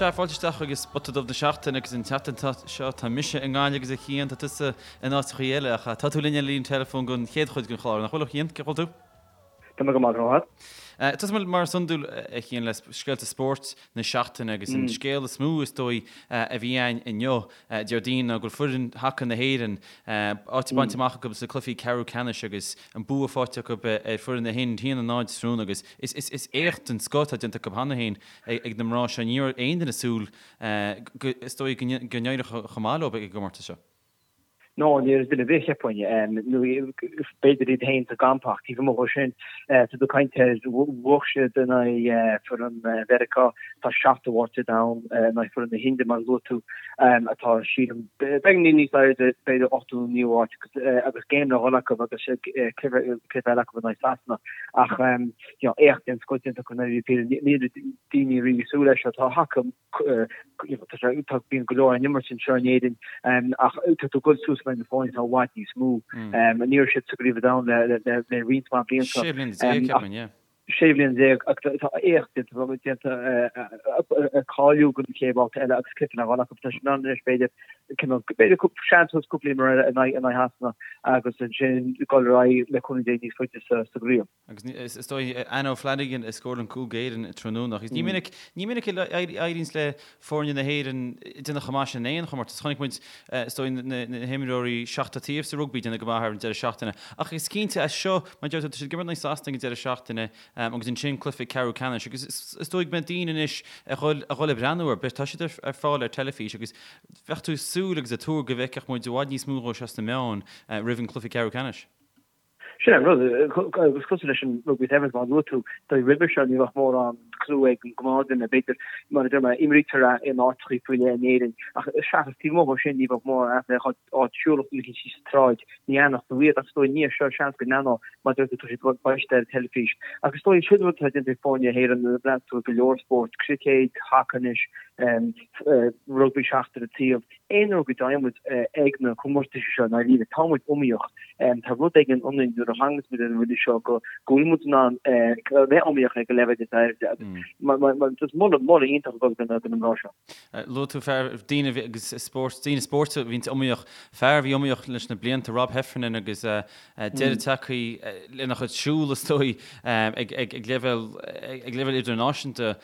Sea, fáilte isteach chuig Spota Dubh na Seachtaine agus an tseachtain seo tá mise i nGaillimh agus a Chian, tá tusa in áiteachaí eile ach tá tú linn ar an líne teileafóin don chéad chuid den chlár, nach bhfuil a Chian? Cén chaoi a bhfuil tú? Tá mé go maith, go raibh maith agat. Tosóidh muid mar is iondúil a Chian le scéalta spóirt na seachtaine agus an scéal is mó is dóigh a bhí ann inniu, Déardaoin, ná go bhfuil foireann haca na hÉireann áit bainte amach acu sna cluichí ceathrú ceannais agus an bua faighte acu ar foireann na hInde 1-0 tráthnóna agus is éacht den scoth atá déanta acu cheana féin ag na mná seo. Ní raibh aon duine ag súil go, is dóigh, go n-éireodh chomh maith leo ag an gcomórtas seo. No, ní raibh duine ar bith, cheapfainn. Nó b'fhéidir iad féin sa gcampa ach taobh amuigh dhó sin, tá tú ag caint ar bhuaigh siad in aghaidh foireann Mheiriceá, atá seachtú háit ar domhan, in aghaidh foireann na hInde, mar a luaigh tú, atá, sílim, beagáinín níos airde, b'fhéidir ochtú nó naoú háit agus game le dhul acu agus cluiche eile acu in aghaidh Sasana. Ach you know, éacht den scoth déanta acu i ndáiríre píre. Ní raibh daoine riamh ag súil leis seo. Tá haca, you know, tá sé, tá, bíonn go leor á n-imirt anseo in Éirinn, ach tá tú ag dul suas in aghaidh na foirne atá i bhfad níos mó. Ní raibh siad sa gCraobh an Domhain le, le, le, le roinnt mhaith blianta. 16 bliana, ceapaim, yeah. 16 bhliain ach tá éacht déanta, déanta, cáiliú don chéad bhabhta eile agus cluiche le dhul acu. Tá siad in ann anois b'fhéidir, cineál, b'fhéidir seans cúpla imreoir eile in aghaidh, in aghaidh Shasana agus ansin dul ar aghaidh le cúnamh Dé níos faide sa, sa gcraobh. Agus is dóigh Anna O'Flanagan a scóráil an cúl d'Éirinn tráthnóna. Agus ní minic, ní minic a éiríonns le foirne na hÉireann déanamh chomh maith sin in aon chomórtas. Chonaic muid, is dóigh, na himreoirí seachtar taobh sa rugbaí déanamh go maith ar an deireadh seachtaine. Ach is cinnte as seo, mar a deir tú, tá siad ag imirt in aghaidh Sasana ag an deireadh seachtaine agus ansin cluiche ceathrú ceannais. Agus is dóigh go mbeidh daoine anois ag dhul, ag dhul ag breathnú air. Tá siad ar fáil ar teilifís agus bheadh tú ag súil agus ag tuar go bhfeicfeadh muid i bhfad níos mó dhó seo sna meáin roimh an cluiche ceathrú ceannais. Sin an rud, agus cosúil leis an Rugby Sevens mar a luaigh tú, dóigh roimhe seo ní bheadh mórán clú ag an gnáthdhuine, b'fhéidir, mar a deir mé, imrítear é in áiteachaí faoi leith in Éirinn, ach seachas taobh amuigh dhó sin ní bheadh mórán aithne ar áit siúlfadh duine éicint síos an tsráid, ní aithneodh tú iad, ach is dóigh i ndiaidh seo seans go n-aithneodh, mar a deir tú, tá siad beidh siad ar an teilifís. Ach is dóigh sin rud atá déanta ag foirne na hÉireann, nuair a bhreathnaíonn tú ar go leor spórt, cruicéad, haca anois, rugbaí seachtar an taobh, Aon uair go dtéann muid ag na comórtais seo, i ndáiríre, tá muid iomaíoch. Tá rud éigin ionainn nuair a thaganns muid ar an rudaí seo go bhfuil muid in ann a bheith iomaíoch ag an leibhéal is airde agus just moladh, moladh iontach ag dul do na mná seo. Luaigh tú fear, daoine agus spórt, daoine spóirt a bhíonns iomaíoch, fear a bhí iomaíoch leis na blianta, Rob Heffernan agus deireadh tagtha lena chuid siúl is dóigh ag leibhéal, ag leibhéal idirnáisiúnta.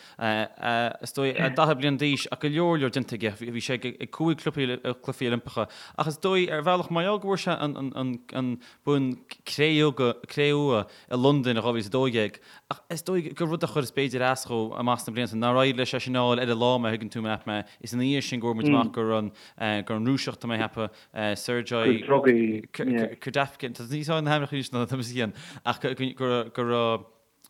Is dóigh, 40 bliain d'aois ach go leor leor déanta aige. Bhí sé ag cúig Chluichí Oilimpeacha. Ach is dóigh, ar bhealach, mar gheall go bhfuair sé an bonn cré-umha i Londain i 2012, ach is dóigh gur rud a chuir b'fhéidir as dhó amach sna blianta, nár éirigh leis é sin a fháil ar an lá, má thuigeann tú mé. Is ina dhiaidh sin go bhfuair muid amach go raibh an Rúiseach, tá mé ag ceapadh, Sergei Kudapkin, tá níos na hainmneacha anois ná tá mise féin, ach go raibh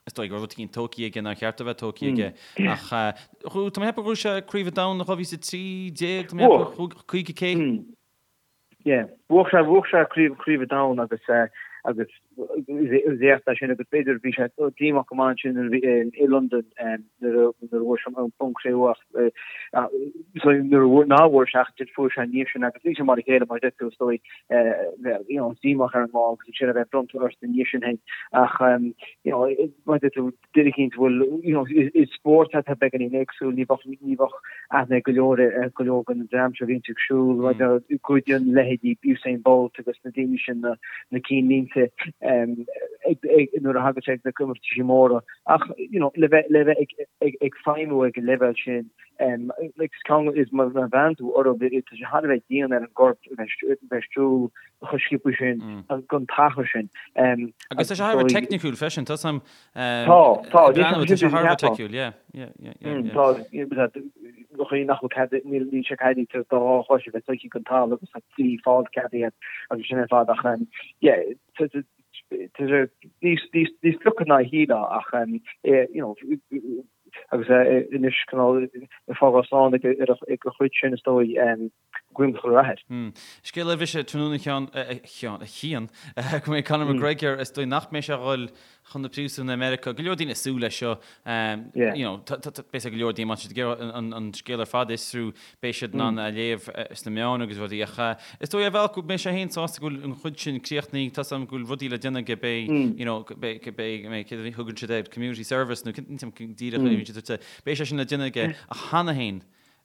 Is dóigh go raibh rud éigin tógtha aige nár cheart a bheith tógtha aige. Ach tá mé ag ceapadh gur bhuaigh sé Craobh an Domhain in 2013, tá mé ag ceapadh, 50K. Yeah, bhuaigh sé, bhuaigh sé Craobh, Craobh an Domhain agus agus is éacht é sin agus b'fhéidir bhí sé díomách go maith ansin nuair a bhí i Londain nuair a nuair a bhuaigh sé an bonn cré-umha ach so nuair a bhuaigh ná bhuaigh sé ach fuair sé an ndiaidh sin agus níl sé mar a chéile mar a deir tú is dóigh bheith you know díomách ar an lá agus ansin a bheith bronnta ort ina dhiaidh sin féin ach you know mar a deir tú duine éicint a bhfuil you know is spórt atá beagáinín éagsúil ní bheadh ní bheadh aithne ag go leor ar go leor den dream seo a bhíonn ag siúl mm. goideann leithéidí Usain Bolt agus na daoine sin na na cinnlínte ag nuair a thagann sé ag na comórtaisí móra ach you know le bheith le bheith ag ag ag feidhmiú ag an leibhéal sin Like is ceann is má bhreathnaíonn tú orthu tá sé thar a bheith dian ar an gcorp a bheith ag siúl chomh sciobtha sin don t-achar sin. Agus tá sé thar a bheith teicniciúil freisin, tá sam Tá, tá, tá sé thar a bheith teicniciúil, yeah, yeah, yeah, yeah. Tá, chaoi nach bhfuil cead, níl níl sé ceadaithe do dhá chois a bheith sroichte den talamh agus tá trí pholl ceadaithe agus sin ar fad ach yeah, tá sé níos níos níos fliucha ná a shílfeá ach you know, Agus é anois cineál ag fágáil slán ag a chuid sin is dóigh, guím chuile rath air. Scéal eile bhí sé tráthnóna a Sheáin, a Sheáin, a Chian, go mbeidh Conor McGregor, is dóigh nach mbeidh sé a dhul chun na príosúin i Meiriceá. Go leor daoine ag súil leis seo. You know, beidh go leor daoine, má tá siad ag iarraidh an scéal ar fad a fhiosrú, beidh siad in ann a léamh sna meáin agus rudaí. Ach is dóigh ar bhealach go mbeidh sé féin sásta go bhfuil an chuid sin críochnaithe. Tá 's agam go bhfuil rudaí le déanamh aige, beidh, you know, beidh, beidh, céard a thugann siad air, community service nó díreach, beidh sé sin le déanamh aige. Ach cheana féin.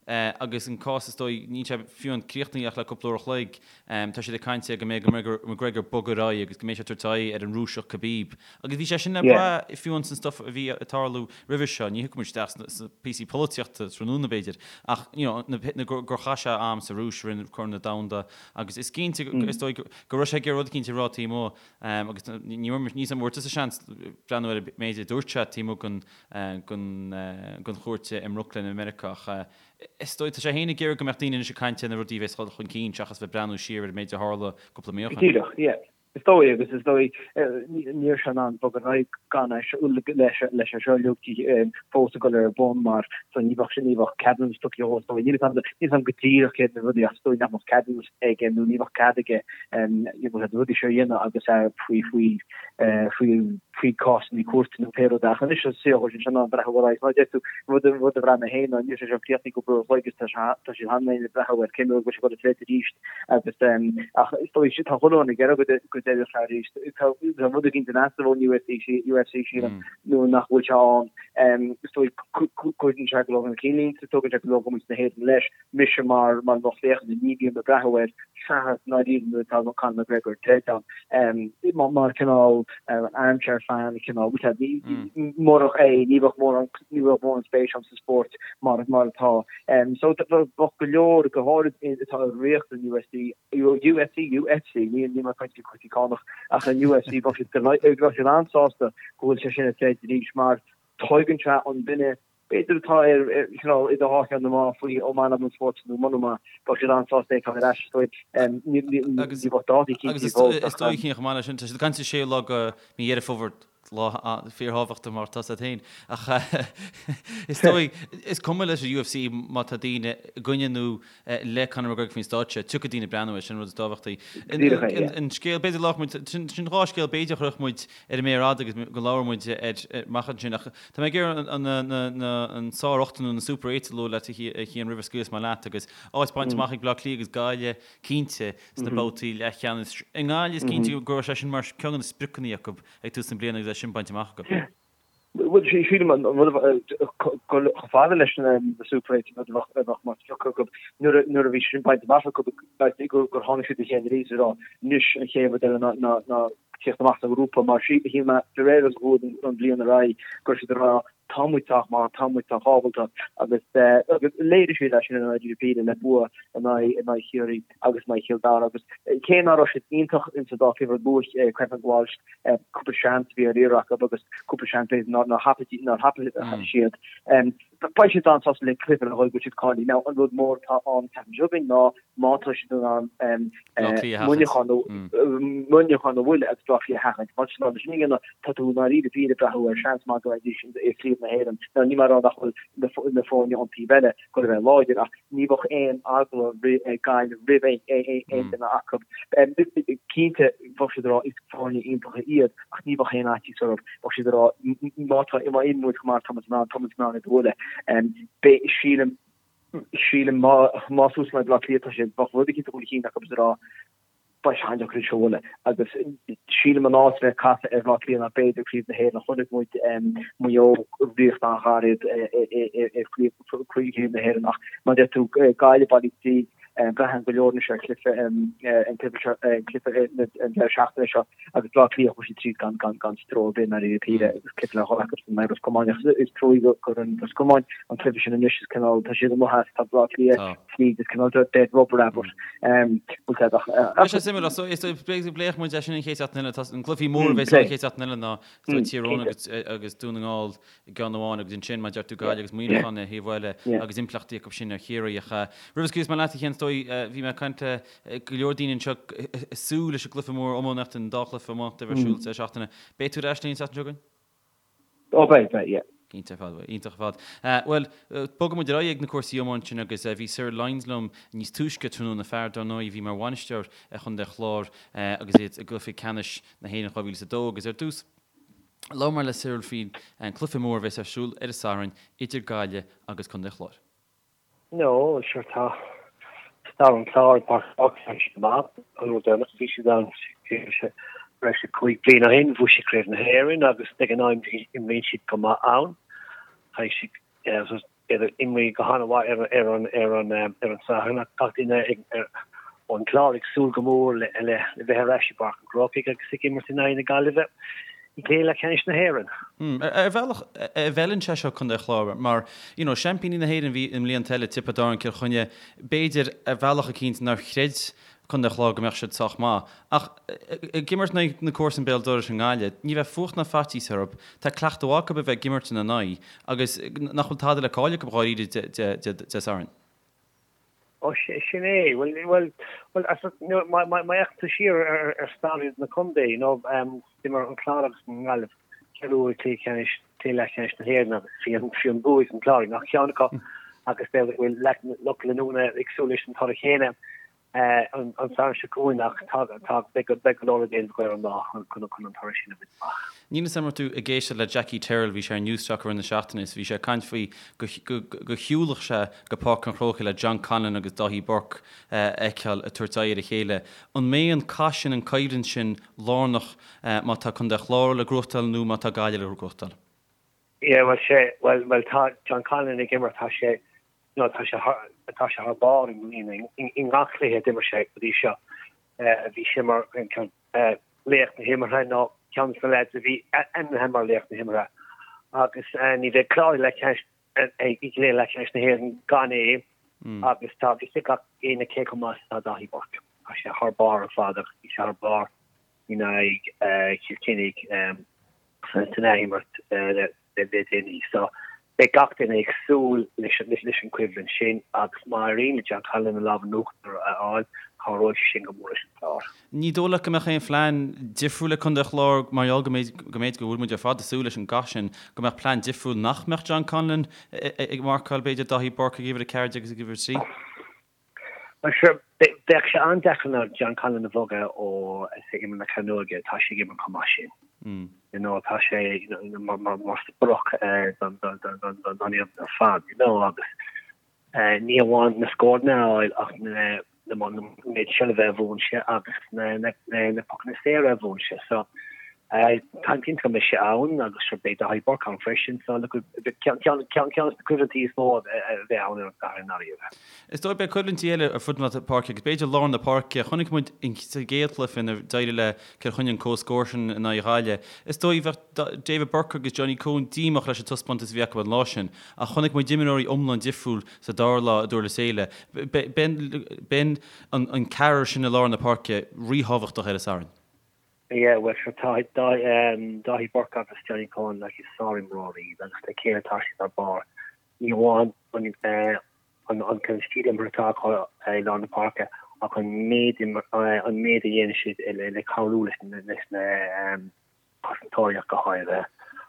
Agus an cás is dóigh, níl sé fiú amháin críochnaithe ach le cúpla uair a chloig, tá siad ag caint go mbeidh McGregor bogtha ar aghaidh agus go mbeidh sé ag tabhairt aghaidh ar an Rúiseach Khabib. Agus bhí sé sin le brath fiú amháin san stuff a bhí ag tarlú roimhe seo, ní thiocfaidh muid isteach sna píosaí polaitíochta tráthnóna b'fhéidir, ach you know na gur chaith sé am sa Rúis roimh Corn an Domhanda agus is cinnte is dóigh go raibh sé ag iarraidh rud eicínt a rá taobh amuigh agus ní raibh níl a fhios agam an bhfuair tusa seans breathnú ar an méid a dúirt sé taobh amuigh den den chúirt i mBrooklyn i Meiriceá ach is dóigh, tá sé féin ag iarraidh go mbeadh daoine anois ag caint ar na rudaí a bheas ag dul chun cinn seachas bheith breathnú siar ar an méid a tharla cúpla mí ó shin. Díreach, yeah. Is dóigh agus is dóigh ní raibh sé in ann bogadh ar aghaidh gan é seo leis leis é seo uilig fós ag dul ar bun mar so ní bheadh ní bheadh ceadúnas tugtha dhó is dóigh. Níl a fhios agam níl a fhios agam go díreach céard na rudaí ach is dóigh nach mbeadh ceadúnas aige nó ní bheadh cead aige na rudaí seo a dhéanamh agus é faoi faoi faoi faoi cásanna cúirte nó pé rud é. Ach anois is saothar sin sin an breathnú ar aghaidh. Mar a deir tú, rud rud a bhraith mé féin ná níl sé seo críochnaithe cúpla uair a chloig agus tá sé tá siad cheana féin ag breathnú ar cén uair go bhfuil sé ag dul ag troid arís agus ach is dóigh tá chuile dhuine ag iarraidh go go dtroidfeadh sé arís. Tá tá rud éicint in easnamh ón UFC UFC sílim nuair nach bhfuil sé ann. Is dóigh cuireann sé go leor chun cinn linn, tugann sé go leor go muintir na hÉireann leis. Mise mar mar lucht féachana ní bhím ag breathnú air seachas ndáiríre nuair atá Conor McGregor ag troid ann. Mar cineál armchair fan cineál murach é ní bheadh mórán ní bheadh mórán spéis agam sa spórt mar mar atá. So bheadh go leor go háirid atá i riocht an UFC UFC UFC ní ní mar caint cúrsaí cánach ach an UFC bheadh siad bheadh siad an-sásta go bhfuil sé sin ag troid arís mar tuigeann sé an duine B'fhéidir atá ar cineál idir dhá cheann na meá faoi an maith liom an spórt nó muna maith, bheadh siad an-sásta é a fheiceáil ar ais is dóigh. Ní bheadh dátaí cinnte fós ach. Is dóigh chomh maith leis sin, tá siad ag caint ar séú lá de mhí Dheireadh Fómhair, lá fíorthábhachtach mar atá a fhios agat féin. Ach is dóigh, is cuma leis an UFC má tá daoine i gcoinne nó le Conor McGregor faoin stáitse, tiocfaidh daoine breathnú air, sin an rud is tábhachtaí. An scéal, b'fhéidir labhróidh muid, sin dhá scéal b'fhéidir a chuirfeadh muid ar an méar fhada agus go labhróidh muid air amach ansin ach tá mé ag iarraidh an sár-ocht nó na Super Eights a lua leat a Chian roimh a scaoilfeas mé leat agus áit bainte amach ag Bleá Cliath agus Gaillimh cinnte sna babhtaí leathcheannais. I nGaillimh is cinnte go raibh sé sin mar ceann de na spriocanna acu ag tús na bliana agus é sin bainte amach acu. Bhuel, sílim an rud chomh fada leis na Super Eights an rud a bheadh mar sprioc acu nuair a bhí sé sin bainte amach acu gur tháinig siad le chéile arís ag rá anois an chéad rud eile ná tíocht amach sa ghrúpa mar shíl mé de réir agus a chuaigh an bhliain ar aghaidh go raibh siad ag rá tá muid sách maith, tá muid sách ábalta agus agus léirigh siad é sin in aghaidh Píle le bua in aghaidh in aghaidh Chiarraí agus in aghaidh Chill Dara agus cé nach raibh siad iontach insa dá chluiche luath Kevin Walsh cúpla seans a bhí ar iarraidh acu agus cúpla seans b'fhéidir nár thapaigh nár thapaigh siad. Beidh siad an-sásta le cluiche le dhul go siad cáilithe. Now an rud mór atá ann an tseachtain seo chugainn ná má tá siad in ann Muineachán Muineachán a bhualadh agus Bleá Cliath a sheachaint. Má tá siad in ann sin a dhéanamh tá tú i ndáiríre píre ag breathnú ar seans maith go mbeidís i gCraobh na hÉireann. Now níl mé ag rá nach bhfuil na foirne ón taobh eile chóir a bheith láidir ach ní bheadh aon eagla ag Gaillimh roimh aon duine acu. Cinnte, bheadh siad ag rá is foirne iontacha iad ach ní bheadh aon fhaitíos orthu. Bheadh siad ag rá má tá má imríonn muid chomh maith tá muid in ann, tá muid in ann iad a bhualadh. Beidh, sílim, sílim má má suas le Baile Átha Cliath tá siad, bheadh rud eicínt a dhul chun cinn acu is ag rá beidh sé an-deacair iad seo a bhualadh agus sílim an áit a bheith caite ar Bhaile Átha Cliath ná b'fhéidir Craobh na hÉireann. Chonaic muid Maigh Eo ríocht an-ghairid i Craobh na hÉireann ach mar a deir tú Gaillimh bailithe tríd, braitheann go leor anois ar chluiche an cluiche seo an cluiche an deireadh seachtaine seo agus Baile Átha Cliath chuaigh siad tríd gan gan gan stró ar bith i ndáiríre píre agus cluiche le dhul acu san Ros Comáin ach is trua gur an Ros Comáin an cluiche sin anois is cineál tá siad amuigh as tá Baile Átha Cliath tríd is cineál dead rubber abair. Bhfuil sé ach. Beidh sé suimiúil so is pléifidh muid é sin an chéad seachtain eile. Tá an cluichí mór a bheas an chéad seachtain eile ná Tír Eoghain agus agus Dún na nGall i gceann amháin agus ansin mar a deir tú Gaillimh agus Muineachán ar thaobh eile agus impleachtaí acu sin ar Chiarraí ach roimh a scaoilfeas mé leat a Chian is dóigh bhí mé ag caint le go leor daoine anseo ag súil leis an gcluiche mór iománaíochta an dá chluiche iománaíochta a bheidh ar siúl sa seachtaine. Beidh tú ar ais linn an tseachtain seo chugainn? Ó beidh, beidh, yeah. Cinnte ar fad, iontach ar fad. Bhuel, bogfaidh muid ar aghaidh ag na cúrsaí iomáint sin agus bhí Cyril Lyons liom níos túisce tráthnóna, fear dar ndóigh a bhí mar bhainisteoir ar Chontae an Chláir agus iad i gcluiche ceannais na hÉireann 2002 agus ar dtús labhair mé le Cyril faoin cluiche mór a bheas ar siúl ar an Satharn idir Gaillimh agus Contae an Chláir. No, sure tá stair an Chláir i bPáirc Tá siad maith, an uair deireanach a bhí siad ann breis is 5 bliana ó shin, bhuaigh siad Craobh na hÉireann agus ag an am imríonn siad go maith ann. Caithfidh siad. Iad ag imirt go han-mhaith ar ar an ar an ar an Satharn ach gach duine ón gClár ag súil go mór le le bheith ar ais i bPáirc an Chrócaigh agus ag imirt in aghaidh na Gaillimhe i gcluiche leathcheannais na hÉireann. Ar bhealach, an bhfeileann sé seo Contae an Chláir mar, you know, seaimpíní na hÉireann a bhí i mblianta eile, Tiobraid Árann, Cill Chainnigh, b'fhéidir ar bhealach eicínt nár chreid Contae an Chláir go mbeadh siad sách maith. Ach ag imirt in aghaidh na comharsan béal dorais i nGaillimh, ní bheidh fuacht ná faitíos orthu, tá cleachtadh mhaith acu a bheith ag imirt ina n-aghaidh agus nach bhfuil tada le cailleadh acu dháiríre Dé Sathairn. Ó sin é, bhuel, bhuel, bhuel, má fhéachann tú siar ar stair na contae, you know, d'imir an Clár agus an Ghaillimh ceithre huaire cluiche ceannais, cluiche leathcheannais na hÉireann agus bhí an, bhí an bua ag an Clár i ngach ceann acu agus b'fhéidir go bhfuil lucht leanúna ag súil leis an toradh chéanna. an Satharn seo chugainn ach tá beidh go leor le déanamh acu ar an lá chun an toradh sin a bhaint amach. Níl 'fhios a'm an raibh tú ag éisteacht le Jackie Tyrrell, bhí sé ar Newstalk i rith na seachtaine is bhí sé ag caint faoi go go shiúlfadh sé go Páirc an Chrócaigh le John Conlon agus Dáithí Burke a fheiceáil ag tabhairt aghaidh ar a chéile. An mbeidh an cath sin, an coimhlint sin lárnach má tá Contae an Chláir le gnóthachtáil nó má tá Gaillimh le gnóthachtáil? Yeah, bhuel sé, bhuel, bhuel tá John Conlon ag imirt, tá sé, No, tá sé thar, tá sé thar barr i mbliana. I ngach cluiche a d'imir sé go dtí seo, bhí sé mar laoch na himeartha nó ceann de na lads a bhí ainmnithe mar laoch na himeartha. Agus ní bheidh Clár i leathcheannais, i gcluiche leathcheannais na hÉireann gan é agus tá a fhios ag gach éinne cé chomh maith is atá Dáithí Burke. Tá sé thar barr ar fad agus bhí sé thar barr in aghaidh Chill Chainnigh san athimirt le déanaí. So beidh gach duine ag súil leis an choimhlint sin agus má éiríonn le John Conlon an lámh in uachtar a fháil, cabhróidh sé sin go mór leis an Chlár. Ní dóigh leat go mbeadh aon phlean difriúil ag Contae an Chláir mar gheall go mb'fhéidir go bhfuil muid ar fad ag súil leis an gcath sin, go mbeadh plean difriúil nach mbeadh John Conlon ag marcáil b'fhéidir Dáithí Burke ag uimhir 14 agus ag uimhir 3? Bhuel, sure, bheadh sé an-deacair ná John Conlon a bhogadh ó imirt na cearnóige, tá sé ag imirt chomh maith sin. You know, tá sé mar sprioc don fhoireann ar fad, you know, agus ní amháin na scóranna a fháil ach na méid seilbhe a bhuann sé agus na pocanna saora a bhuann sé. So, Táim cinnte go mbeidh sé ann agus sure beidh Dáithí Burke ann freisin so look ceann de na coimhlintí is mó a bheidh ann ar an Satharn i ndáiríre. Is dóigh beidh coimhlintí eile ar fud na páirce agus b'fhéidir lár na páirce. Chonaic muid sa gcéad chluiche nuair a d'éirigh le Cill Chainnigh an comhscór sin in aghaidh Ghaillimh. Is dóigh bheadh David Burke agus Johnny Coen díomách leis an taispeántas a bhí acu an lá sin ach chonaic muid imreoirí iomlán difriúil sa dara lá i nDurlas Éile. Beidh an ceathrar sin i lár na páirce ríthábhachtach ar an Satharn. Yeah, bhuel sure tá Dáithí Burke agus Johnny Coen like is sárimreoirí iad agus le chéile tá siad thar barr. Ní amháin an an an an stíl imeartha atá acu i lár na páirce ach an méid an méid a dhéanann siad le le cabhrú leis na leis na cosantóirí ach go háirithe.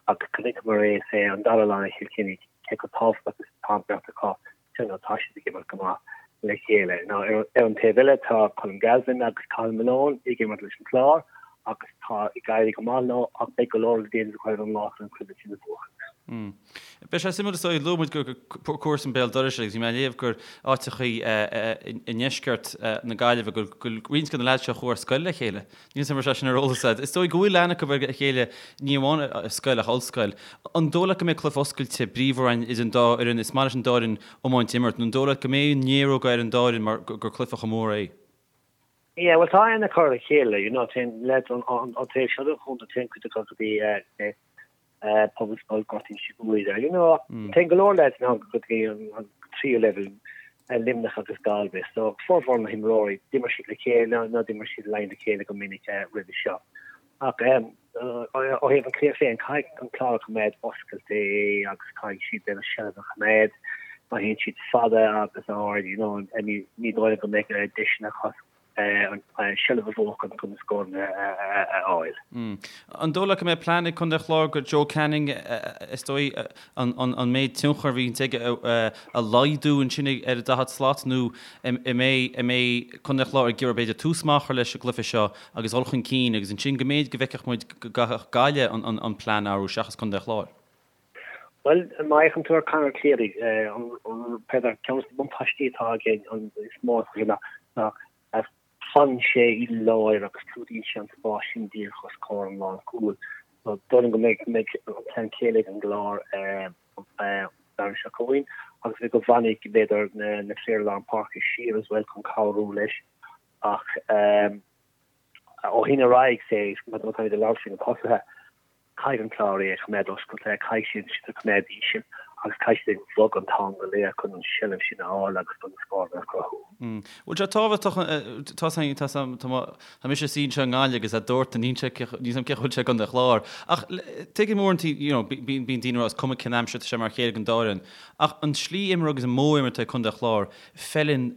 Agus chonaiceamar é sé an dara lá i Chill Chainnigh cé chomh tábhachtach is atá an bheirt acu you know, tá siad ag imirt go maith le chéile. Now, ar, ar an taobh eile tá Colm Galvin agus Cathal Malone ag imirt leis an Chlár agus tá ag éirí go maith leo ach beidh go leor le déanamh acu ar an lá chun an chluiche sin a bhuachan. Mm. Beidh sé suimiúil is dóigh, luaigh muid gur comharsan béal dorais agus bhí mé ag léamh gur áiteachaí i ndeisceart na Gaillimhe go bhfuil roinnt de na leaids seo a chuaigh ar scoil le chéile. Níl 'fhios a'm an raibh sé sin ar eolas agat. Is dóigh go bhfuil aithne acu ar a chéile, ní amháin ar scoil ach ollscoil. An dóigh leat go mbeidh cluiche oscailte, bríomhar ann idir an dá fhoireann? Is maith leis an dá fhoireann iomáint a imirt. Nó an dóigh leat go mbeidh an néaróg ar an dá fhoireann mar gur cluiche chomh mór é? Yeah, bhuel tá aithne acu ar a chéile, you know, téann leaids ón taobh seo den chontae, téann cuid acu go dtí Pobalscoil Ghort Inse Guaire, you know, téann go leor leaids ann go dtí an tríú leibhéal, Luimneach agus Galway, so formhór na himreoirí, d'imir siad le chéile nó d'imir siad in aghaidh a chéile go minic roimhe seo. Ach ó thaobh an chluiche féin, caithfidh an Clár a choimeád oscailte agus caithfidh siad b'fhéidir seilbh a choimeád má théann siad fada agus ard, you know, ní dóigh liom go mbeidh deiseanna acu an seilbh a bhuachan chun na scóranna a fháil. An dóigh leat go mbeidh plean ag Contae an Chláir go Joe Canning, is dóigh, an méid tionchair a bhíonns aige a laghdú ansin ar an daichead slat nó an mbeidh Contae an Chláir ag iarraidh b'fhéidir tús maith a chur leis an gcluiche seo agus dul chun cinn agus ansin go mb'fhéidir go bhfeicfeadh muid go gcaithfeadh Gaillimh an plean a athrú seachas Contae an Chláir? Bhuel, má fhéachann tú ar Conor Cleary, b'fhéidir ceann de na buntáistí atá aige an is mó ná fanann sé i lár agus clúdaíonn sé an spás sin díreach os comhair an lánchúil. So dóigh liom go mbeidh an plean céanna ag an gClár. Domhnach seo chugainn agus b'fhéidir go bhfanfaidh b'fhéidir na fir lár páirce siar as well chun cabhrú leis ach ó shin ar aghaidh say má táimid ag labhairt faoi na tosaithe Caithfidh an Clár é a choimeád oscailte, caithfidh siad siad a choimeád íseal agus caithfidh siad ag bogadh an t-am go léir chun an seilbh sin a fháil agus chun na scóranna a chruthú. Bhfuil sé tábhachtach, tá tá mise suí anseo i nGaillimh agus a dúirt níl sé níl 'fhios a'm cén chaoi a bhfuil sé i gContae an Chláir. Ach tuigim uaireanta, you know, bíonn daoine ag rá is cuma cén aimsir tá sé mar a chéile don dá fhoireann. Ach an slí imeartha agus an modh imeartha ag Contae an Chláir, feileann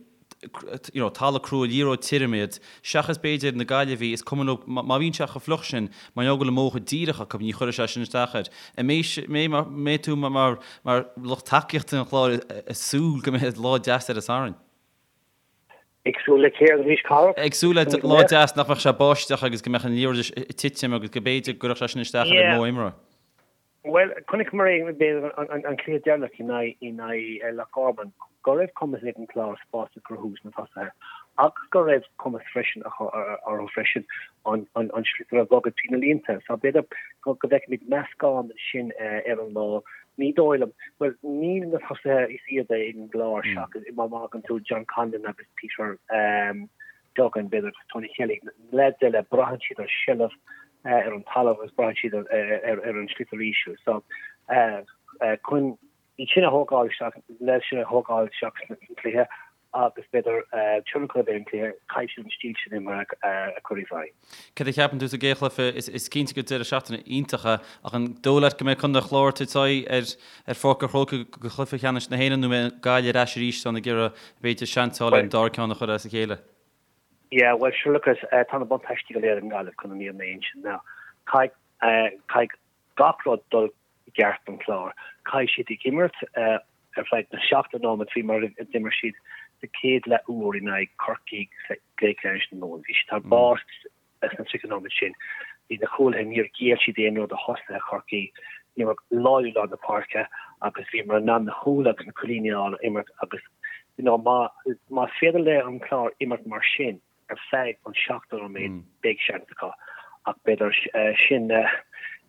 you know, talamh crua, liathróid tirim iad, seachas b'fhéidir na Gaillimhigh, is cuma leo, má bhíonn sé chomh fliuch sin, mar gheall go bhfuil an modh chomh díreach acu, ní chuirfidh sé sin isteach air. An mbeidh, mbeidh tú mar, mar lucht tacaíochta an Chláir ag súil go mbeidh lá deas ar an Satharn? Ag súil le céard arís, Cárthach? Ag súil le lá deas nach mbeadh sé báisteach agus go mbeadh an liathróid ag titim agus go b'fhéidir go gcuirfeadh sé sin isteach ar an modh imeartha. Bhuel, chonaiceamar é, b'fhéidir, an cluiche deireanach in aghaidh Loch Garman, go raibh cumas ag an Clár spás a chruthú sna tosaithe agus go raibh cumas freisin orthu freisin an sliotar a bhogadh trí na línte. So b'fhéidir go bhfeicfimid meascán sin ar an lá. Ní dóigh liom, bhuel, níl na tosaithe is iad ag an gClár seachas má fhágann tú John Conlon agus Peter Duggan, b'fhéidir, agus Tony Kelly, na leaids eile, braitheann siad ar sheilbh ar an talamh agus braitheann siad ar an sliotar íseal. So, chun iad sin a thógáil isteach, na leaids sin a thógáil isteach sna cluiche agus b'fhéidir tionchar a bheith ar an cluiche, caithfidh siad an stíl sin imeartha a chur i bhfeidhm. Céard a cheapann tú sa gcéad chluiche? Is cinnte gur deireadh seachtaine iontach é, ach an dóigh leat go mbeidh Contae an Chláir ag tabhairt aghaidh ar Pháirc an Chrócaigh do chluiche ceannais na hÉireann nó an mbeidh Gaillimh ar ais arís ann ag iarraidh b'fhéidir seans a fháil ar an dara ceann a chur as a chéile? Yeah, bhuel, sure look, tá na buntáistí go léir ag an nGaillimh chun an fhírinne a insint. Now, caithfidh, caithfidh gach rud dul i gceart don Chlár. Caithfidh siad ag imirt ar feadh na 70 nóiméad faoi mar a d'imir siad sa chéad leath uair in aghaidh Corcaigh sa gcluiche ceannais na Mumhan. Bhí siad thar barr sna 30 nóiméad sin. Bhí na cúlaithe, níor ghéill siad aon rud do thosaithe Chorcaí. Bhíomar láidir i lár na páirce agus bhíomar in ann na cúil agus na cúilíní a fháil imirt agus you know má más féidir le an Clár imirt mar sin ar feadh an 70 nóiméad beidh seans acu ach b'fhéidir sin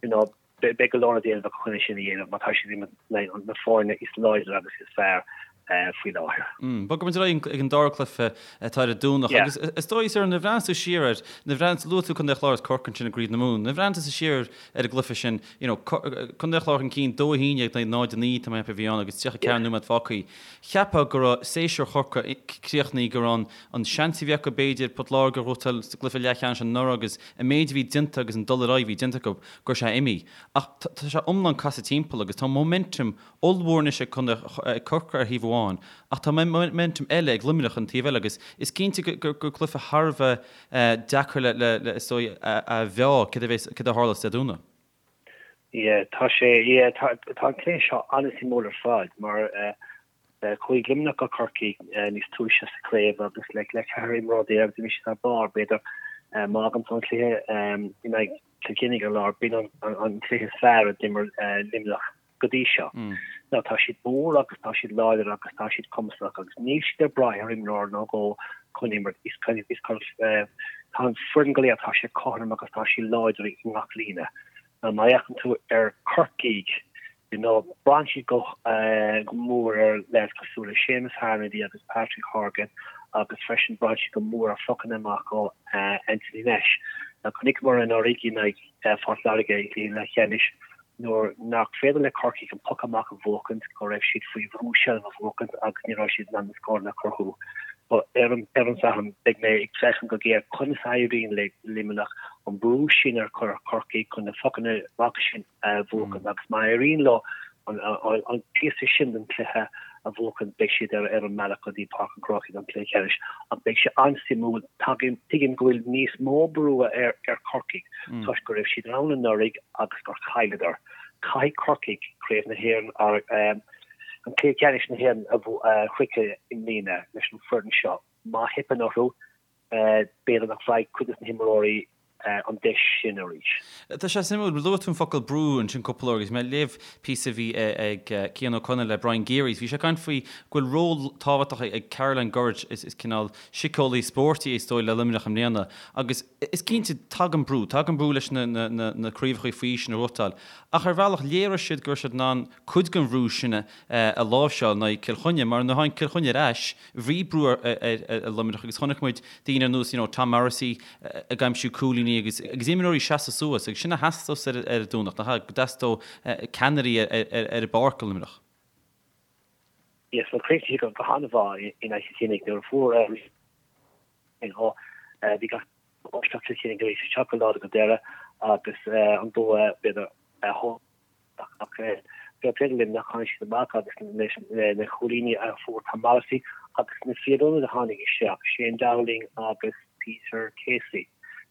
you know beidh go leor le déanamh acu chun é sin a dhéanamh má tá siad ag imirt na foirne is láidre agus is fearr faoi láthair. Bogfaimid ar aghaidh ag an dara cluiche atá ar an Domhnach agus is dóigh sir nuair a bhreathnaíos tú siar air, nuair a bhreathnaíos, luaigh tú Contae an Chláir agus Corcaigh ansin i gCraobh na Mumhan, nuair a bhreathnaíos tusa siar ar an gcluiche sin, you know, Contae an Chláir chun cinn 2-11 in aghaidh 0-9 tá mé ag ceapadh a bhí ann agus 34 nóiméad fágtha. Cheapfá go raibh séasúr Chorcaí críochnaithe, go raibh an seans a bhí acu b'fhéidir Port Láirge a ghnóthachtáil sa gcluiche leathcheannais anuraidh agus an méid a bhí déanta agus an dul ar aghaidh a bhí déanta acu, go raibh sé imithe. Ach tá sé iomlán casadh timpeall agus tá momentum ollmhór anois ag ag Corcaigh ar thaobh amháin ach tá momentum eile ag Luimneach an taobh eile agus is cinnte gur cluiche thar a bheith deacair le le is dóigh a mheá céard a bheas céard a tharlós Dé Domhnaigh. Yeah tá sé yeah tá tá an cluiche seo an-suimiúil ar fad mar chuaigh Luimneach go Corcaigh níos túisce sa chraobh agus le le 14 imreoir d'imir siad thar barr b'fhéidir má fhágann tú an cluiche in aghaidh Cill Chainnigh ar lár b'in an an cluiche is fearr a d'imir Luimneach go dtí seo. Now tá siad mór agus tá siad láidir agus tá siad cumasach agus níl siad ag brath ar imreoir nó dhó chun imirt. Is is tá an foireann go léir tá sé cothrom agus tá sí láidir i ngach líne. Now má fhéachann tú ar Corcaigh you know braitheann siad go go mór ar leaids cosúil le Séamus Harnedy agus Patrick Horgan agus freisin braitheann siad go mór ar phocanna amach ó Anthony Nash. Now chonaiceamar anuraidh in aghaidh Phort Láirge i gcluiche leathcheannais nuair nach féidir le Corcaigh an poc amach a bhuachaint, go raibh siad faoi bhrú seilbh a bhuachaint agus ní raibh siad in ann na scóranna a chruthú. But ar an ar an Satharn, beidh mé ag féachaint go géar conas a éiríonn le Luimneach an brú sin a chur ar Chorcaigh chun na pocanna amach sin a bhuachaint agus má éiríonn leo an an píosa sin den chluiche a bhuachaint beidh siad ar ar an mbealach go dtí Páirc an Chrócaigh don chluiche ceannais ach beidh sé an-suimiúil. Tuigim tuigim go bhfuil níos mó brú ar ar Chorcaigh toisc go raibh siad ann anuraidh agus gur chailleadar. Caithfidh Corcaigh Craobh na hÉireann, an Cluiche Ceannais na hÉireann a shroicheadh i mbliana leis an foireann seo. Má theipeann orthu, b'fhéidir nach bhfaighidh cuid de na himreoirí. an deis sin arís. Tá sé suimiúil, luaigh tú an focal brú ansin cúpla uair agus mé ag léamh píosa a bhí ag Cian Ó Conaill le Brian Gearys, bhí sé ag caint faoi go bhfuil ról tábhachtach ag Caroline Gurridge, is cineál síceolaí spóirt í is dóigh le Luimneach i mbliana agus is cinnte tagann brú, tagann brú leis na craobhacha faoi aois sin a ghnóthachtáil ach ar bhealach léirigh siad go raibh siad in ann cuid den bhrú sin a láimhseáil in aghaidh Cill Chainnigh mar nuair a tháinig Cill Chainnigh ar ais bhí brú ar Luimneach agus chonaic muid daoine ar nós you know Tom Morrissey ag aimsiú cúilíní agus agus imreoirí seasamh suas agus sin a theastós ar an Domhnach, nach ea? Go dteastódh ceannairí ar an bpáirc do Luimneach. Yes, well chríochnaigh siad go han-mhaith in aghaidh Chill Chainnigh nuair a fuair you know bhí gach isteach Cill Chainnigh arís isteach go láidir go deireadh agus an bua b'fhéidir a Ach fair play do Luimneach, tháinig siad amach agus na cúilíní a fuair Tom Morrissey agus na fir ionaid a tháinig isteach, Shane Dowling agus Peter Casey,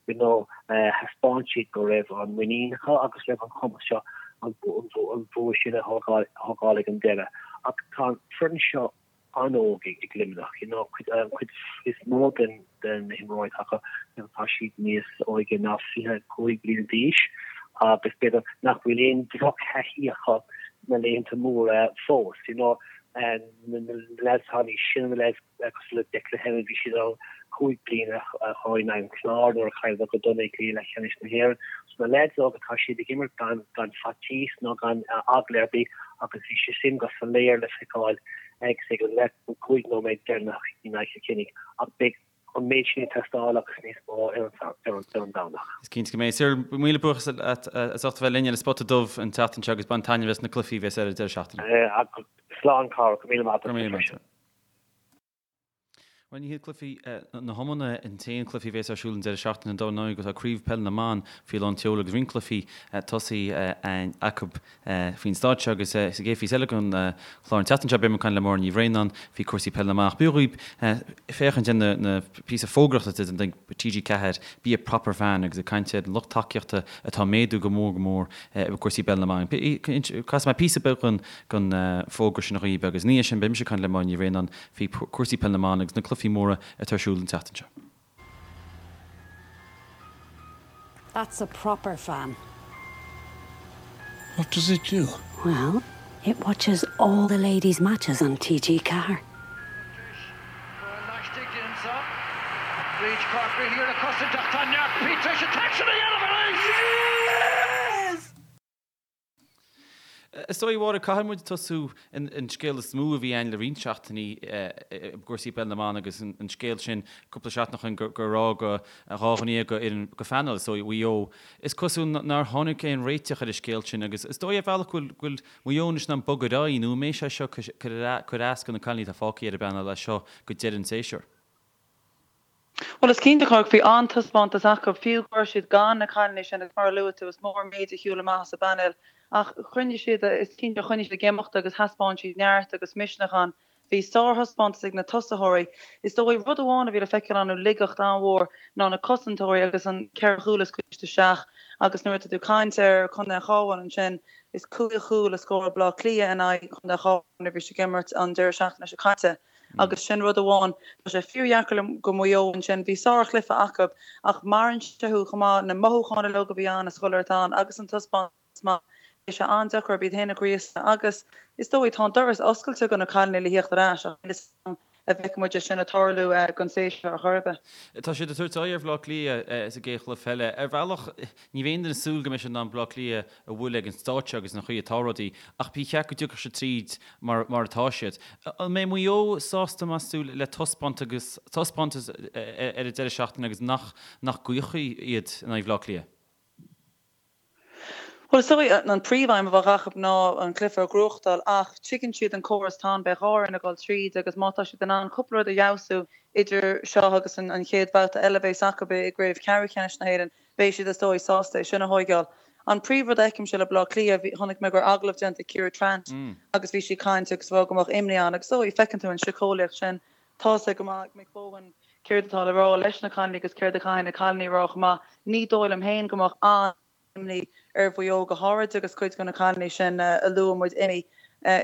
you know, thaispeáin siad go raibh an muinín acu agus raibh an cumas seo an bua sin a thógáil ag an deireadh. Ach tá an foireann seo an-óg ag Luimneach. You know, an chuid is mó den na himreoirí atá acu, tá siad níos óige ná 25 bliana d'aois agus b'fhéidir nach bhfuil aon drochthaithí acu sna laethanta móra fós. You know, na lads atá níos sine, na lads cosúil le Declan Hannon, bhí siad ann 5 bliana ó shin in aghaidh an Chláir nuair a chailleadar go dona i gcluiche leathcheannais na hÉireann. So na lads óga tá siad ag imirt gan gan faitíos nó gan eagla ar bith agus bhí sé sin go soiléir le feiceáil ag ag an leath an 5 nóiméad deireanach in aghaidh Chill Chainnigh ach beidh an méid sin ag teastáil agus níos mó ar an ar an Domhnach. Is cinnte go mbeidh. Cyril, míle buíochas leat as ucht a bheith linn ar an Spota Dubh an tseachtain seo agus bain taitneamh as na cluichí a bheas ar an deireadh seachtaine. Slán Cárthach, go raibh míle maith agat. Bhuel, ní hiad cluichí na hiomána an t-aon cluichí a bhéas ar siúl an deireadh seachtaine dar ndóigh tá Craobh Peile na mBan faoi lán tseoil agus roinnt cluichí tosaithe acu faoin staid seo agus sa gcéad phíosa eile den chlár an tseachtain seo beidh mé ag caint le Máire Ní Bhraonáin faoi cúrsaí peile na mban. Ach b'fhiú dhaoibh féachaint ar na píosa fógraíochta den TG4 Be a Proper Fan agus ag caint ar an lucht tacaíochta atá ag méadú go mór go mór i gcúrsaí peile na mban. Casfaidh mé píosa beag den bhfógra sin dhaoibh agus ina dhiaidh sin beidh mise ag caint le Máire Ní Bhraonáin faoi chúrsaí peile na mban agus na cluichí móra atá ar siúl an tseachtain seo. That's a proper fan. What does it do? Well, it watches all the ladies' matches on TG4. Is dóigh, a Mháire, caithfidh muid tosú an scéal is mó a bhí ann le roinnt seachtainí i gcúrsaí peile na mban agus an scéal sin cúpla seachtain ó shin gur fhág 12 dhuine den phainéal, is dóigh, Mhaigh Eo. Is cosúil nár tháinig aon réiteach ar an scéal sin agus is dóigh ar bhealach go bhfuil Maigh Eo anois in ann bogadh ar aghaidh nó an mbeidh sé seo cur as do na cailíní atá fágtha ar an bpainéal as seo go deireadh an tséasúir? Bhuel, is cinnte, Cork, bhí an-taispeántas acu, fiú go raibh siad gan na cailíní sin agus mar a luaigh tú, is mór an méid a shiúil amach as an bpainéal. Ach choinnigh siad, is cinnte, choinnigh siad ag imeacht agus thaispeáin siad neart agus misneach ann. Bhí sárthaispeántas ag na tosaitheoirí. Is dóigh, rud amháin a bhí le feiceáil ann, laigeacht an-mhór, ná na cosantóirí agus an ceithre chúl a scaoileadh isteach agus nuair atá tú ag caint ar Chontae an Chabháin ansin, is cúig chúl a scóráil Baile Átha Cliath in aghaidh Chontae an Chabháin nuair a bhí siad ag imirt an deireadh seachtaine seo caite. Agus sin rud amháin, tá sé fíordheacair le go Maigh Eo ansin, bhí sárchluiche acu ach maireann sé thú chomh maith, na mothúcháin uilig a bhí ann is chuile shórt ann agus an taispeántas maith, beidh sé an-deacair orthu iad féin a ghríosadh agus is dóigh tá an doras oscailte do na cailíní le thíocht ar ais ach níl a fhios agam an bhfeicfidh muid é sin ag tarlú don séasúr ar chor ar bith. Tá siad ag tabhairt aghaidh ar Bhaile Átha Cliath sa gcéad chluiche eile. Ar bhealach, ní bheidh aon duine ag súil go mbeidh siad in ann Baile Átha Cliath a bhualadh ag an staid seo agus an chaoi atá rudaí, ach ba cheart go dtiocfadh siad tríd mar mar atá siad. An mbeidh Maigh Eo sásta, meas tú, le taispeántas taispeántas ar an deireadh seachtaine agus nach nach gcaochfaí iad in aghaidh Bhaile Átha Cliath? Bhuel, is dóigh, an príomhaidhm a bheadh acu ná an cluiche a ghnóthachtáil ach tuigeann siad an córas atá ann, beidh dhá fhoireann ag dul tríd agus má tá siad in ann cúpla rud a fheabhsú idir seo agus an chéad bhabhta eile a bheas acu i gcraobh ceathrú ceannais na hÉireann, beidh siad is dóigh sásta é sin a thóigeáil. An príomhrud a fheicimse le Baile Átha Cliath, chonaic mé go raibh agallamh déanta ag Ciara Trant agus bhí sí ag caint agus ag rá go mbeadh imní ann agus is dóigh feiceann tú an síceolaíocht sin, tá's go maith ag Mick Bohan céard atá le rá leis na cailíní agus céard a chaithfidh na cailíní a rá chomh maith. Ní dóigh liom féin go mbeadh an-imní ar Mhaigh Eo go háirid agus cuid de na cailíní sin a luaigh muid imithe.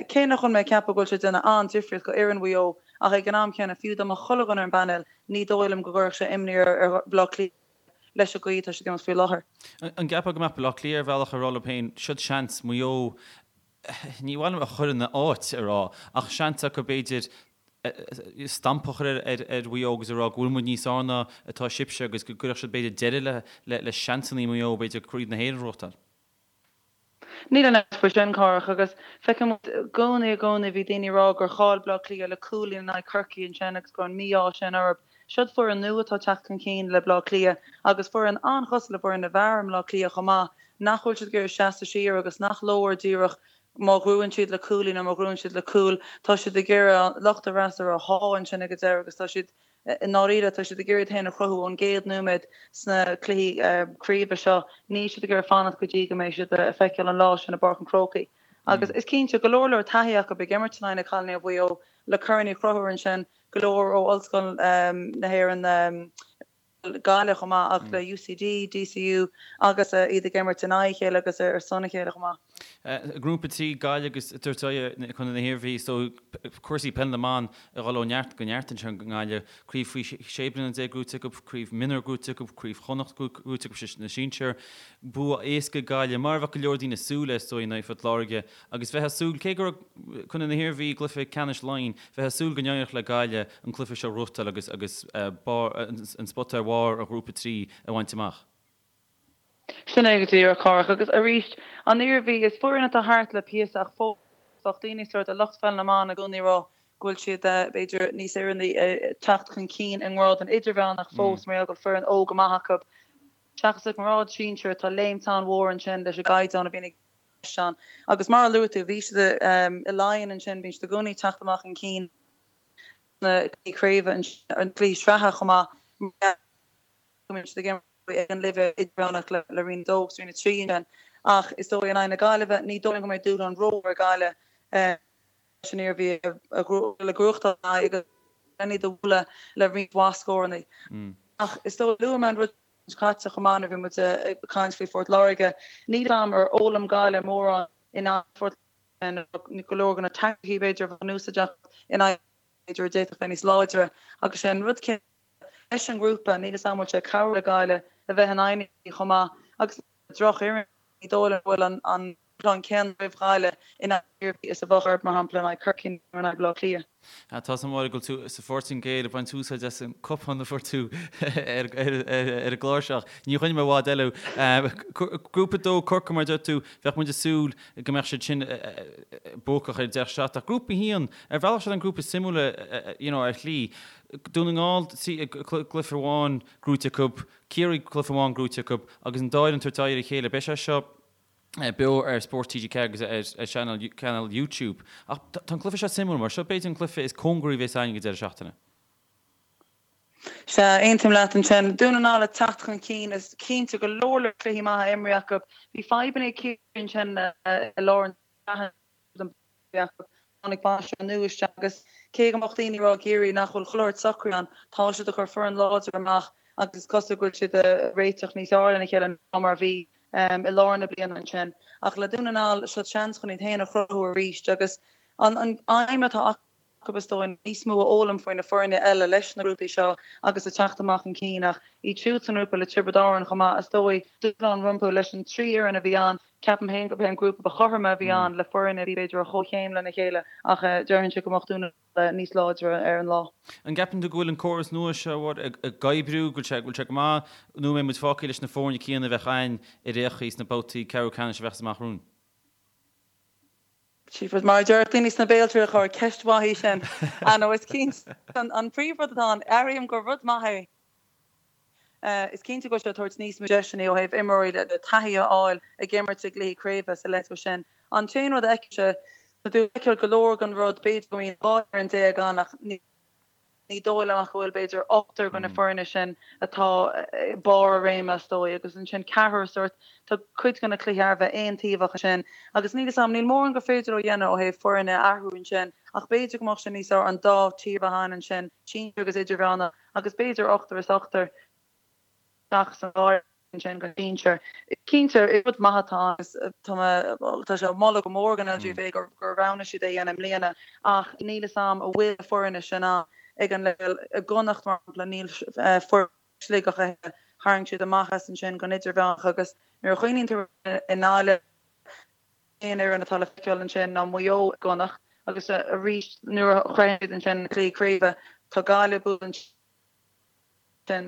Cé nach bhfuil mé ag ceapadh go bhfuil sé ag déanamh an-difríocht go fhoireann Mhaigh Eo ach ag an am céanna fiú dá mbeadh chuile dhuine ar an bpainéal ní dóigh liom go gcuirfeadh sé imní ar Bhaile Átha Cliath. leis an gcaoi atá siad ag imirt faoi láthair. An gceapfá go mbeadh Baile Átha Cliath ar bhealach ag rá leo féin, siod seans, Maigh Eo, ní mhaith liom a chur ina áit a rá, ach seans acu b'fhéidir stampa a chur ar Mhaigh Eo agus a rá go bhfuil muid níos fearr ná atá sibhse agus go gcuirfeadh siad b'fhéidir deireadh le seansanna Mhaigh Eo b'fhéidir Craobh na hÉireann a ghnóthachtáil. Níl aon amhras faoi sin, Cárthach, agus feiceann muid i gcónaí, i gcónaí, bhí daoine ag rá gur chaill Bleá Cliath le cúilín in aghaidh Chorcaí ansin agus go raibh an mí-ádh sin orthu. Siod foireann nua atá ag teacht chun cinn le Bleá Cliath agus foireann an-chosúil le foireann na bhfear i mBleá Cliath chomh maith, nach bhfuil siad ag iarraidh seasamh siar agus nach leor díreach má ghnóthaíonn siad le cúilín nó má ghnóthaíonn siad le cúl, tá siad ag iarraidh lucht an fhreasúra a shá ansin ag an deireadh agus tá siad I ndáiríre, tá siad ag iarraidh iad féin a chruthú ón gcéad nóiméad sna cluichí craoibhe seo. Níl siad ag iarraidh fanacht go dtí go mbeidh siad ag feiceáil an lá sin i bPáirc an Chrócaigh. Agus is cinnte, go leor leor taithí acu ag imirt in aghaidh na cailíní ó Mhaigh Eo le corn a chruthú ansin, go leor ó Ollscoil na hÉireann, Gaillimh chomh maith, ach le UCD, DCU agus iad ag imirt in aghaidh a chéile agus ar son a chéile chomh maith. Grúpa 3, Gaillimh agus tabhairt aghaidh Contae na hIarmhí so cúrsaí peil na mban ag dul ó neart go neart anseo i nGaillimh. Craobh faoi 16 bliana gnóite acu, craobh mionúr gnóite acu, craobh Chonnacht gnóite acu na sinsir. Bua éasca ag Gaillimh, mar a bheadh go leor daoine ag súil leis is dóigh in aghaidh Phort Láirge agus bheifeá ag súil, cé go raibh Contae na hIarmhí i gcluiche ceannais Laighean, bheifeá ag súil go n-éireodh le Gaillimh an cluiche seo a ghnóthachtáil agus agus an spota ar bharr an ghrúpa 3 a bhaint amach. Sin é go díreach, Cárthach. Agus arís, an Iarmhí, is foireann atá thart le píosa ach fós bheadh daoine sórt de lucht pheil na mban i gcónaí ag rá go bhfuil siad b'fhéidir níos oiriúnaí ag teacht chun cinn i ngrád an idirmheánach fós mar gheall go bhfuil foireann óg go maith acu seachas i ngrád sinsir tá léimt an-mhór ansin leis an gcaighdeán a bhíonn i gceist ann. Agus mar a luaigh tú, bhí siad i Laighin ansin, bíonn siad i gcónaí ag teacht amach chun cinn sna cluichí craoibhe ansin, na cluichí sraithe chomh maith mar gheall go mbíonn siad ag imirt ag an leibhéal idirmheánach le Roinn 2 agus Roinn 3 ansin. Ach is dóigh in aghaidh na Gaillimhe, ní dóigh liom go mbeidh dúshlán rómhór ag Gaillimh leis an Iarmhí a ghnóthachtáil agus len iad a bhualadh le roinnt mhaith scóranna. Ach is dóigh, luaigh mé an rud seo caite chomh maith nuair a bhí muid ag caint faoi Phort Láirge, níl a fhios agam ar fhoghlaim Gaillimh mórán in aghaidh Phort Láirge, go leor de na teaicticí b'fhéidir a bheadh in úsáid acu in aghaidh b'fhéidir a d'fhéadfadh bheith níos láidre agus sé an rud céanna leis an ngrúpa, níl 'fhios a'm an bhfuil sé ag cabhrú le Gaillimh a bheith in aghaidh na chomh maith agus drochfhoireann, ní dóigh liom go bhfuil an dúshlán céanna roimh Ghaillimh in aghaidh na hIarmhí is a bheadh orthu, mar shampla, in aghaidh Chorcaí nó in aghaidh Bhaile Átha Cliath. Tá 's agam go bhfuil tú sa Phortaingéil ag baint úsáid as an cupán a fuair tú ar an gclár seo. Ní choinneoidh mé i bhfad eile thú. Grúpa 2, Corcaigh, mar a deir tú, bheadh muid ag súil go mbeadh siad sin buacach ar deireadh seachtaine. Ach Grúpa 1, ar bhealach siod an grúpa is suimiúla you know ar shlí. Dún na nGall, cluiche amháin gnóite acu, Ciarraí cluiche amháin gnóite acu agus an dá fhoireann ag tabhairt aghaidh ar a chéile. Beidh sé seo beo ar Spórt TG4 agus ar chainéal YouTube. Ach tá an cluiche seo suimiúil mar seo b'fhéidir an cluiche is cóngaraí a bheas againn ag an deireadh seachtaine. Sea, aontaím leat ansin. Dún na nGall ag teacht chun cinn. Is cinnte go leor leor cluichí maithe imrithe acu. Bhí fadhbanna ag Ciarraí ansin i lár an tsraithe acu. Tháinig bainisteoir nua isteach agus cé go mbeadh daoine ag rá i gCiarraí nach bhfuil chuile shórt socraithe ann, tá siad ag cur foireann láidir amach agus is cosúil go bhfuil siad ag réiteach níos fearr lena chéile ná mar a bhí i lár na bliana ansin. Ach le Dún na nGall, seo seans chun iad féin a chruthú arís agus an aidhm atá acu, acu is dóigh, níos mó a fhoghlaim faoi na foirne eile leis na grúpaí seo agus ag teacht amach chun cinn ach iad siúd sa ngrúpa le Tiobraid Árann chomh maith is dóigh, dúshlán rompu leis an dtrí fhoireann a bhí ann. Ceapaim féin gurb é an grúpa ba chothroime a bhí ann le foirne a bhí b'fhéidir ar chomhchéim lena chéile ach déarfainnse go mbeadh Dún na nGall níos láidre ar an lá. An gceapann tú go bhfuil an córas nua seo ag oibriú, go bhfuil sé, go bhfuil sé go maith nó an mbeidh muid fágtha leis na foirne céanna a bheadh againn ar aon chaoi sna babhtaí ceathrú ceannais a bheas amach romhainn? Jeepers, mar a déarfadh daoine sna Béaltrialach, chóir, ceist mhaith í sin. Ah no, is cinnte, an príomhrud atá ann, airím gur rud maith é. Is cinnte go bhfuil sé ag tabhairt níos mó deiseanna ó thaobh imreoirí le taithí a fháil ag imirt i gcluichí craoibhe sa leibhéal sin. An t-aon rud a fheicimse, tá tú ag feiceáil go leor den rud, b'fhéidir go mbíonn 12 fhoireann ann ach ní, Ní dóigh liom ach go bhfuil b'fhéidir ochtar de na foirne sin atá i barr a réime is dóigh agus ansin ceathrar sórt, tá cuid de na cluichí thar a bheith aontaobhach ansin agus níl 'fhios a'm, níl mórán gur féidir leo a dhéanamh ó thaobh foirne a athrú ansin ach b'fhéidir go mbeadh sé níos fearr an dá tír a bheith ann ansin, sinsir agus idirmheánach agus b'fhéidir ochtar is ochtar. Seachas an dá fhoireann sin den sinsir. Cinnte, is rud maith atá ann agus tá mé, tá sé á mholadh go mór ag an LGFA gur gur roghnaigh siad é a dhéanamh i mbliana ach níl 'fhios a'm an bhfuil na foirne sin ann ag an leibhéal i gConnacht mar shampla níl foireann Sligeach a thuilleadh. Tharraing siad amach as ansin don idirmheánach agus nuair a chuimhníonn tú i nGaillimh, aon fhoireann atá le feiceáil ansin ná Maigh Eo i gConnacht agus arís nuair a shroicheann siad ansin cluichí craoibhe tá Gaillimh buaite ansin,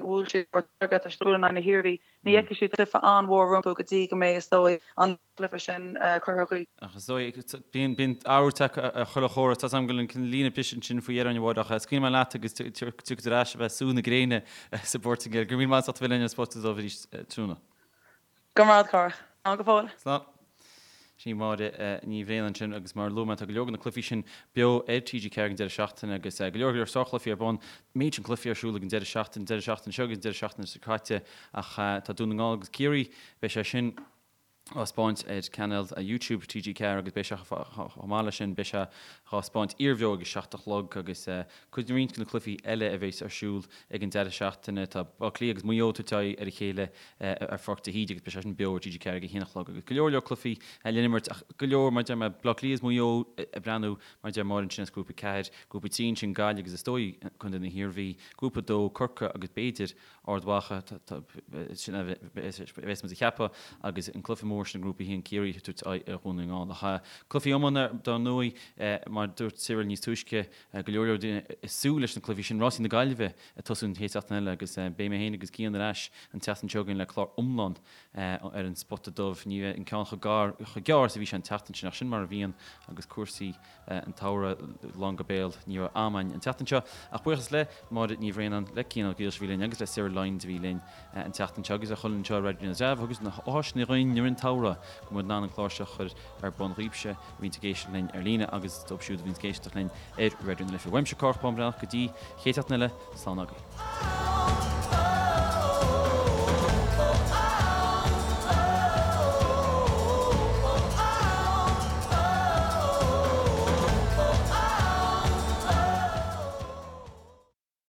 bhuail siad Port Láirge, tá siad ag bualadh in aghaidh na hIarmhí, ní fheicfidh siad cluiche an-mhór rompu go dtí go mbeidh is dóigh an cluiche sin curtha chuig. Ach is dóigh, bíonn bíonn athrú ag teacht ar chuile chóras, tá 's agam go bhfuil an líne briste ansin faoi dheireadh a Mháire ach scaoilfidh mé leat agus tiocfaidh tú ar ais a bheith sú na gréine sa bPortaingéil. Go raibh míle maith agat as ucht a bheith linn ar an Spota Dubh arís tráthnóna. Go raibh maith agat, a Chárthaigh. Slán go fóill. Slán. Sin í Máire Ní Bhraonáin ansin agus mar a luaigh mé tá go leor de na cluichí sin beo ar TG4 ag an deireadh seachtaine agus go leor go leor sárchluichí ar bun. Méid sin cluichí ar siúl ag an deireadh seachtaine, deireadh seachtaine seo agus an deireadh seachtaine seo caite ach tá Dún na nGall agus Ciarraí, beidh sé sin á 'spáint ar chainéal YouTube TG4 agus beidh sé chomh maith leis sin beidh sé á 'spáint iarbheo ag a 7 a chlog agus cuid roinnt de na cluichí eile a bheas ar siúl ag an deireadh seachtaine tá Baile Átha Cliath agus Maigh Eo ag tabhairt aghaidh ar a chéile ar Pháirc de hÍde agus beidh sé sin beo ar TG4 ag a haon a chlog agus go leor leor cluichí le n-imirt ach go leor mar a deir mé Baile Átha Cliath is Maigh Eo ag breathnú mar a deir Máire ansin as Grúpa 4, Grúpa 3 ansin Gaillimh agus is dóigh Contae na hIarmhí, Grúpa 2 Corcaigh agus b'fhéidir Ard Mhacha, sin a bheas muid a cheapadh, agus an cluiche mór sin i nGrúpa 1, Ciarraí ag tabhairt aghaidh ar Dhún na nGall. Ach cluichí iomána, dar ndóigh, mar a dúirt Cyril níos túisce, go leor leor daoine ag súil leis na cluichí sin. Rásaí na Gaillimhe ag tosú an chéad seachtain eile agus beidh mé féin agus Cian ar ais an tseachtain seo chugainn le clár iomlán ar an Spota Dubh. Ní bheidh an ceann chomh gearr is a bhí sé an tseachtain sin ach sin mar a bhíonn agus cúrsaí an tsamhraidh lán go béal. Ní raibh am againn an tseachtain seo ach buíochas le Máire Ní Bhraonáin, le Cian Ó Gaoilis a bhí linn agus le Cyril Lyons a bhí linn an tseachtain seo agus le chuile dhuine anseo i Raidió na dTreabh agus na háiseanna dhúinn i rith an tsamhraidh go bhfuil muid in ann an clár seo a chur ar bun dhaoibhse a bhíonns ag éisteacht linn ar líne agus dóibh siúd a bhíonns ag éisteacht linn ar Raidió na Life. Uaimse Cárthach Bán Breathnach go dtí chéad seachtain eile, slán agaibh.